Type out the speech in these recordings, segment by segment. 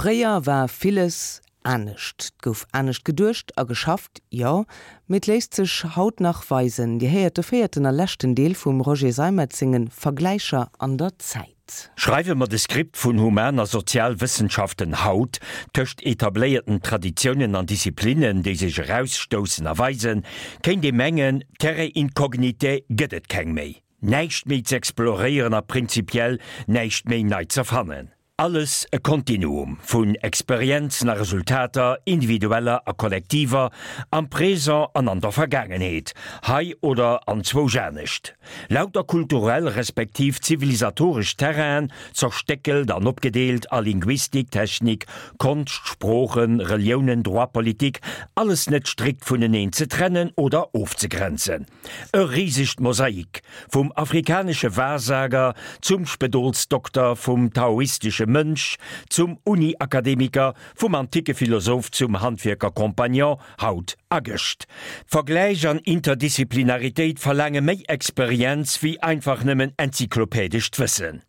Fréier war villes anescht. 't gouf anescht geduecht a geschafft, jo, mee 't léisst sech haut nach weisen. Dir héiert de véierten a leschten Deel vum Roger Seimetz senge Vergläicher an der Zäit. Schreiwe mer de Skript vun Human a Sozialwëssenschaften haut, tëscht etabléierten Traditiounen an Disziplinnen, déi sech erausstoussen a weisen, kéint ee mengen, Terrae incognitae gëtt et keng méi, näischt méi z'exploréieren a prinzipiell näischt méi nei z'erfannen. Alles e Kontinuum vun Experienzen a Resultater, individueller a kollektiver, am Présent an an der Vergaangenheet, hei oder anzwousch anescht. Lauter kulturell respektiv zivilisatoresch Terrainen, zerstéckelt an opgedeelt a Linguistik, Technik, Konscht, Sproochen, Reliounen, Droit, Politik, alles net strikt vuneneen ze trennen oder ofzegrenzen. E risegt Mosaik, vum afrikanesche Wahrsager zum Spedolsdokter, vum taoistesche Mönch zum Uni-Akademiker, vum anticke Philosoph zum Handwierker-Compagnon, haut a gëscht. Vergläich an Interdisciplinaritéit verlaange méi Experienz wéi einfach nëmmen enzyklopädescht Wëssen.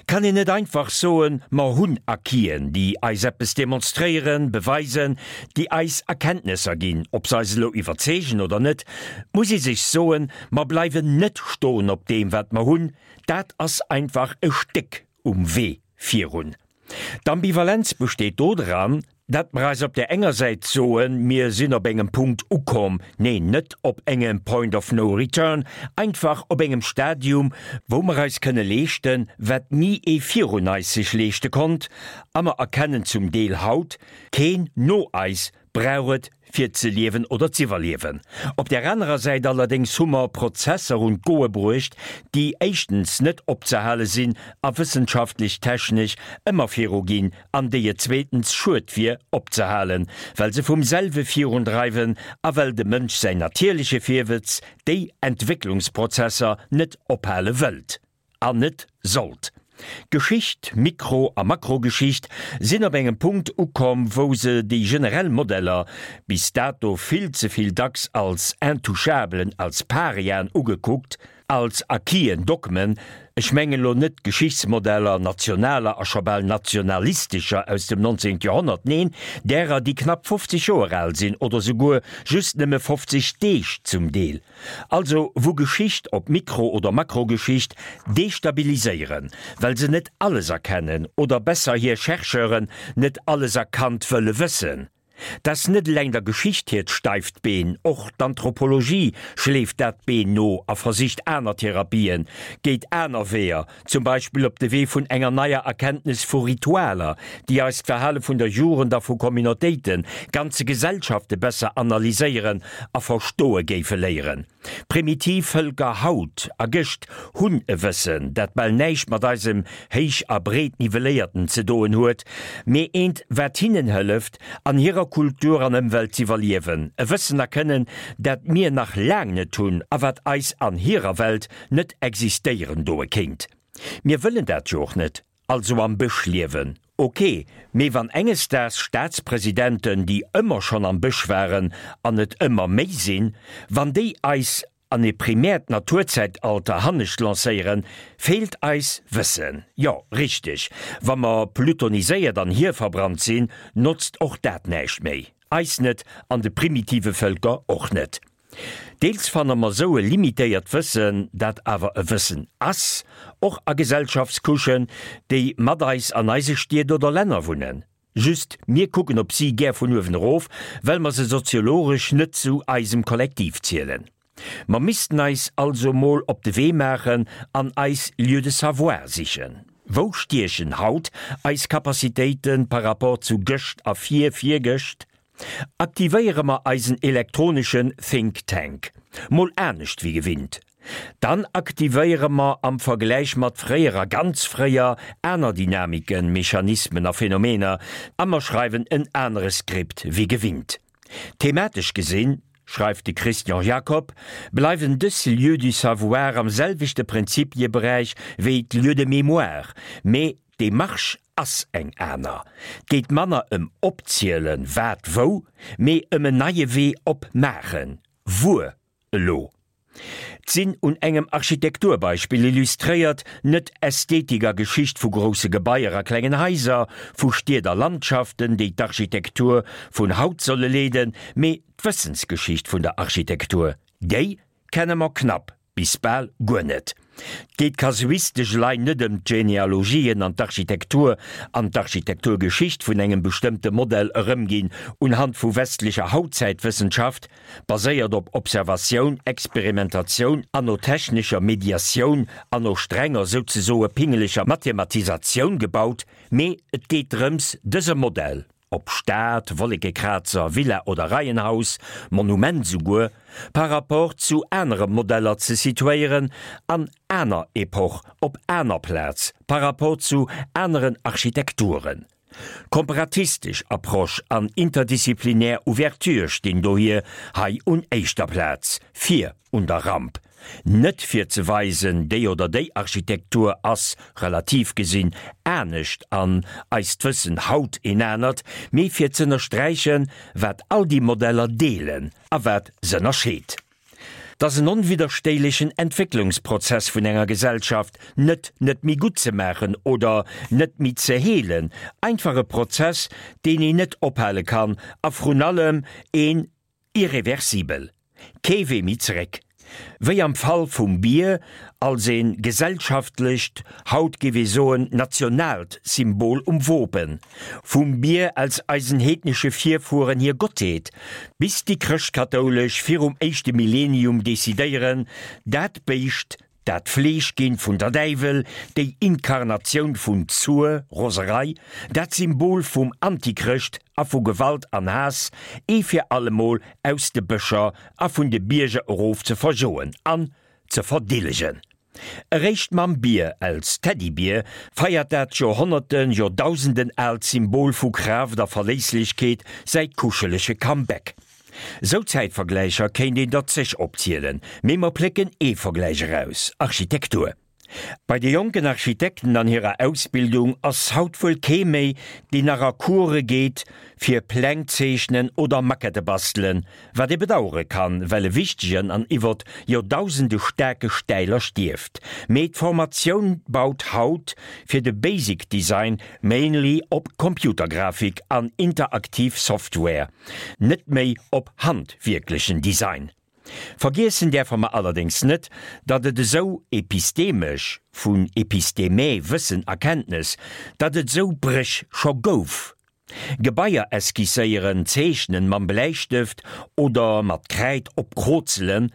Kann een net einfach soen, mer hunn Acquisen, déi eis eppes demonstréieren, beweisen, déi eis Erkenntnesser ginn, ob se eis elo iwwerzeegen oder net, muss ee sech soen, mer bleiwen net stoen op deem, wat mer hunn, dat ass einfach e Stéck um Wee virun. D'Ambivalenz besteet dodran, dat mer eis op där enger Säit soen, mir sinn op engem Punkt ukomm, neen, net op engem Point of no return, einfach op engem Stadium, wou mer eis kënne leeschten, wat ni ee virun eis sech leeschte konnt, a mer erkennen zum Deel haut, keen no eis brauch et fir ze liewen oder z'iwwerliewen. Op där anerer Säit allerdéngs hu mer Prozesser un d'Goe bruecht, déi éischtens net opzehale sinn a wëssenschaftlech-technesch ëmmer viruginn an déi et zweetens schued wier opzehalen, well se vum selwe virundreiwen a well dem Mënsch säin natierleche Virwëtz déi Entwécklungsprozesser net ophale wëllt. An net sollt. Geschicht, Mikro a Makrogeschicht, sinn op engem Punkt ukomm, wou se déi generell Modeller, bis dato vill ze vill dacks als Intouchablen, als Pariaen ugekuckt, als Acquisen, Dogmen, ech mengen elo net d'Geschichtsmodeller nationaler a scho bal nationalistescher aus dem 19. Joerhonnert, neen, därer, déi knapp 50 Joer al sinn oder souguer just nëmme 50 Deeg zum Deel. Also wou Geschicht, ob Mikro oder Makrogeschicht, destabiliséieren, well se net alles erkennen oder besser hir Chercheuren net alles erkannt wëlle wëssen. T'ass net eleng der Geschicht hiert steift Been, och d'Anthropologie schleeft dat Been no a versicht aner Therapien, geet aner Weeër, Zum Beispill op de Wee vun enger neier Erkenntnes vu Ritualer, déi eis d'Verhale vun der Jugend a vu Communautéiten, ganze Gesellschafte besser analyséieren a verstoe géife léieren. Primitiv Vëlker haut a gëscht hunn e Wëssen, dat bal näischt mat eisem héich a breet nivelléierten ze doen huet, mee eent, wat hinnen hëlleft, an hirer Kultur an Ëmwelt z'iwwerliewen, e Wëssen a Kënnen, dat mir nach laang net hunn a wat eis an hirer Welt net existéieren doe kéint. Mir wëllen dat jo och net, also am Bësch liewen, ok, mee wann enges Daags Staatspresidenten, déi ëmmer schonn am Bësch waren an et ëmmer méi sinn, wann déi eis an e primäert Naturzäitalter hannescht lancéieren, feelt eis Wëssen. Jo, richteg, wa mer plutoniséiert an hierverbrannt sinn, notzt och dat näischt méi. Eis net an de primitive Vëlker och net. Deels fanne mer sou e limitéiert Wëssen, dat awer e Wëssen ass, och a Gesellschaftscouchen, déi mat eis an eise Stied oder Länner wunnen. Just, mir kucken op si gär vun uewen erof, well mer se soziologesch net zu eisem Kollektiv zielen. Mer missten eis also mol op de Wee maachen an eis Lieux de savoir sichen. Wou stiechen haut eis Capacitéite par rapport zu gëscht a vir-virgëscht? Aktivéiere mer eisen elektroneschen Think Tank mol anescht wéi gewinnt, dann aktivéiere mer am Vergläich mat fréier a ganz fréier aner Dynamiken, Mechanismen a Phänomener a mer schreiwen en anere Skript wéi gewinnt. Thematesch gesinn, schreift de Christian Jacob, bleiwen dës Lieux du savoir am selwechte Prinzipieberäich wéi d'Lieux de mémoire, mee D'Demarche ass eng aner. 't geet manner ëm opzielen, wat wou, mee ëm en neie Wee opmaachen, wuer elo. D'sinn un engem Architekturbeispill illustréiert, net Ästhetik a Geschicht vu grousse Gebaier a klengen Haiser, vu Stied a Landschaften, déi d'Architektur vun haut solle leeden, mee d'Wëssensgeschicht vun der Architektur. Déi kenne mer knapp bis bal guer net. 't geet kasuistesch elei net ëm d'Genealogien an d'Architektur an d'Architekturgeschicht vun engem bestëmmte Modell erëmginn unhand vu westlecher Hautzäitwëssenschaft, baséiert op Observatioun, Experimentatioun an no technescher Mediatioun an no strenger, souzesoe pingeleger Mathematisatioun gebaut, mee et geet drëms, dëse Modell, ob Stad, Wollekekrazer, Villa oder Reihenhaus, Monument souguer, par rapport zu anere Modeller ze situéieren, an aner Epoch, op aner Plaz, par rapport zu aneren Architekturen. Komparatistesch Approche an interdisziplinär Ouverture stinn dohier hei un éischter Plaz, vir un der Ramp. Net fir ze weisen, déi oder déi Architektur ass, relativ gesinn, anescht an eist Wëssen haut een anert, mee fir z'ënnersträichen, wat all déi Modeller deelen a wat s'ënnerscheet. 't ass en onwidderstéilechen Entwécklungsprozess vun enger Gesellschaft, net net méi gutt ze maachen oder net méi ze heelen, einfach e Prozess, deen een net ophale kann a vrun allem een irreversibel, kee Wee méi zeréck. Wéi am Fall vum Bier als ee gesellschaftlecht, haut géif ee soen nationaalt Symbol um Wopen, vum Bier als eisen heednesche Virfueren hir Gottheet, bis déi Chrëschtkatoulesch virum éischte Millenium decidéieren, dat Béischt Dat Fleesch ginn vun der Däiwel, déi Inkarnatioun vun Zur, Roserei, dat Symbol vum Antichrëscht a vu Gewalt an Haass, ee fir allemol aus de Bëscher a vun de Bierger erof ze verjoen an ze verdillegen. Eréischt mam Bier als Teddybier feiert dat Joerhonnerten, Joerdausenden aalt Symbol vu Kraaft a Verléisslechkeet säi kuschelege Comeback. Sou Zäitvergläicher kéint een der zeg opzielen, mee mer plécken ee Vergläich eraus, Architektur. Bei de jonken Architekten an hirer Ausbildung ass haut wuel kee méi, deen nach a Course geet fir Pläng zeechnen oder Maquette bastelen, wat ee bedauere kann, well e wichtegen an iwwert Joerdausende staarke Stäiler stierft. Mee d'Formatioun baut haut fir de Basic Design mainly op Computergrafik an interaktiv Software. Net méi op handwierklechen Design. Vergiessen däerfe mer allerdéngs net, datt et esou epistemesch, vun episteme, Wëssen, Erkenntnes, datt et esou Bréch scho gouf. Gebaier esquisséieren, zeechnen, mam Bläistëft oder mat Kräid opkrozelen,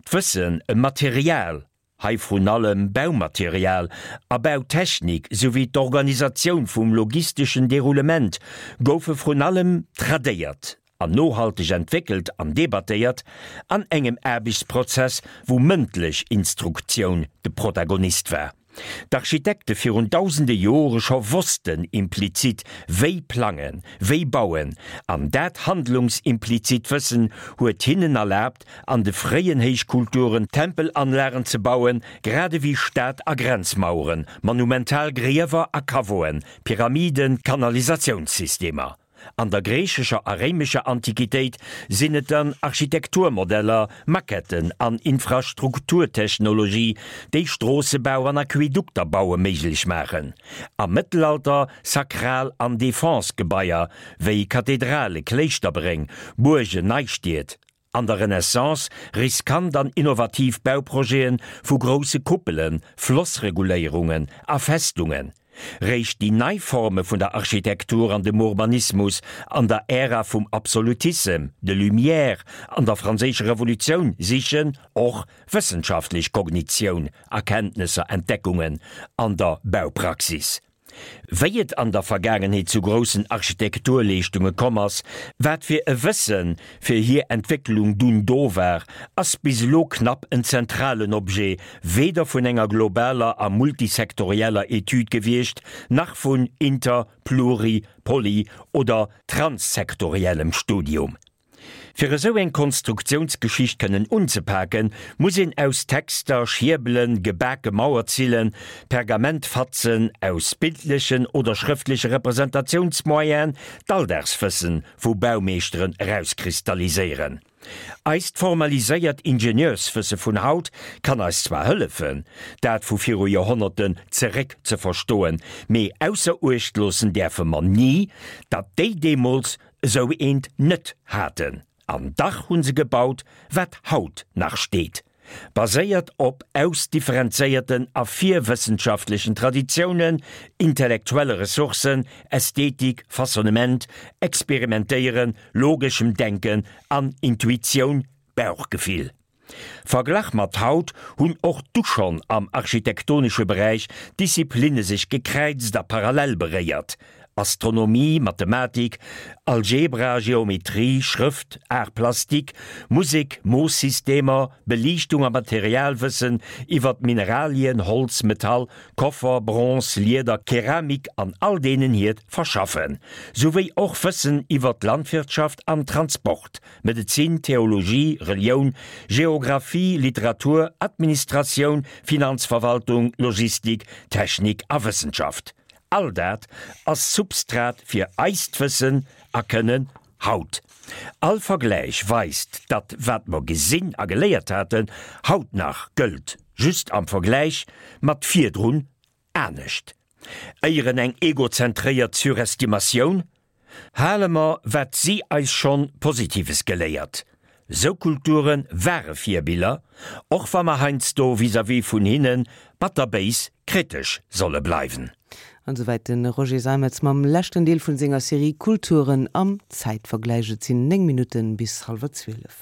d'Wëssen ëm Material, Hei vrun allem Baumaterial a Bautechnik souwéi d'Organisatioun vum logisteschen Deroulement goufe vrun allem tradéiert an nohalteg entwéckelt an debattéiert an engem Aarbechtsprozess, wou mëndlech Instruktioun de Protagonist war. D'Architekte virun dausende Jore scho wossten implizit wéi plangen, wéi bauen, an dat handlungsimplizit Wëssen huet hinnen erlaabt, an de fréien Héichkulturen Tempelanlagen ze bauen, grad ewéi Stad a Grenzmaueren, monumental Griewer a Caveauen, Pyramiden, Kanalisatiounssystemer. An der griichescher a réimescher Antiquitéit sinn et dann Architekturmodeller, Maquetten an Infrastrukturtechnologie, déi Stroossebau an Aquädukter baue méiglech maachen. Am Mëttelalter sakral an Defense-Gebaier wéi Kathedrale, Kléischterbréng, Buergen, Neistied. An der Renaissance riskant an innovativ Bauprojete vu grousse Kuppelen, Flossreguléierungen a Festungen. Réischt déi nei Forme vun der Architektur an dem Urbanismus an der Ära vum Absolutissem, de Lumières an der Franséischer Revolutioun sichen och wëssenschaftlech Kognitioun, Erkenntnesser, Entdeckungen an der Baupraxis. Wéi et an der Vergaangenheet zu groussen Architekturleeschtunge komm ass, wat fir e Wësse fir hir Entwécklung dunn do war, ass bis elo knapp en zentralen Objet weder vun enger globaler a multisektorieller Etüd gewiescht, nach vun inter-, pluri-, poly oder transsektoriellem Studium. Fir esou eng Konstruktiounsgeschicht kënnen unzepaken, muss een aus Texter, Schierbelen, gebake Mauerzillen, Pergamentfatzen, aus bildlechen oder schrëftleche Representatiounsmoyenen d'Alldagswëssen vu Baumeeschteren erauskristalliséieren. Eist formaliséiert Ingenieurswësse vun haut kann eis zwar hëllefen, dat vu viru Joerhonnerten zeréck ze verstoen, mee ausser Uecht loossen däerfe mer ni, datt déi deemools esou eent net haten. An dach hu se gebaut, wat haut nach steet. Baséiert op ausdifferenzéierten a virwëssenschaftlechen Traditiounen, intellektuelle Ressourcen, Ästhetik, Façonnement, Experimentéieren, logeschem Denken an Intuitioun, Bauchgefill. Verglach mat haut hunn och du schonn am architektonesche Beräich d'Disziplinne sech gekräizt a parallel beréiert, Astronomie, Mathematik, Algebra, Geometrie, Schrëft, Art plastique, Musek, Moosssystemer, Beliichtung a Materialwëssen iwwer Mineralien, Holz, Metall, Koffer, Bronze, Lieder, Keramik an all deenen hiert Verschaffen, souwéi och Wëssen iwwer d'Landwirtschaft an Transport, Medezin, Theologie, Relioun, Geographie, Literatur, Administratioun, Finanzverwaltung, Logistik, Technik a Wëssenschaft. All dat ass Substrat fir eist Wëssen a Kënnen haut. All Vergläich weist, datt wat mer gesinn a geléiert haten, haut nach gëllt, just am Vergläich mat virdrun anescht. Éieren eng egozentréiert Surestimatioun? Hale mer wat si eis schonn Positives geléiert. Sou Kulture ware Virbiller, och wa mer heiansdo vis-à-vis vun hinne batterbéis kritesch solle bleiwen. An esouwäit de Roger Seimetz mam leschten Deel vun senger Serie Kulturen am Zäitvergläich. Et sinn 9 Minutten bis hallwer 12.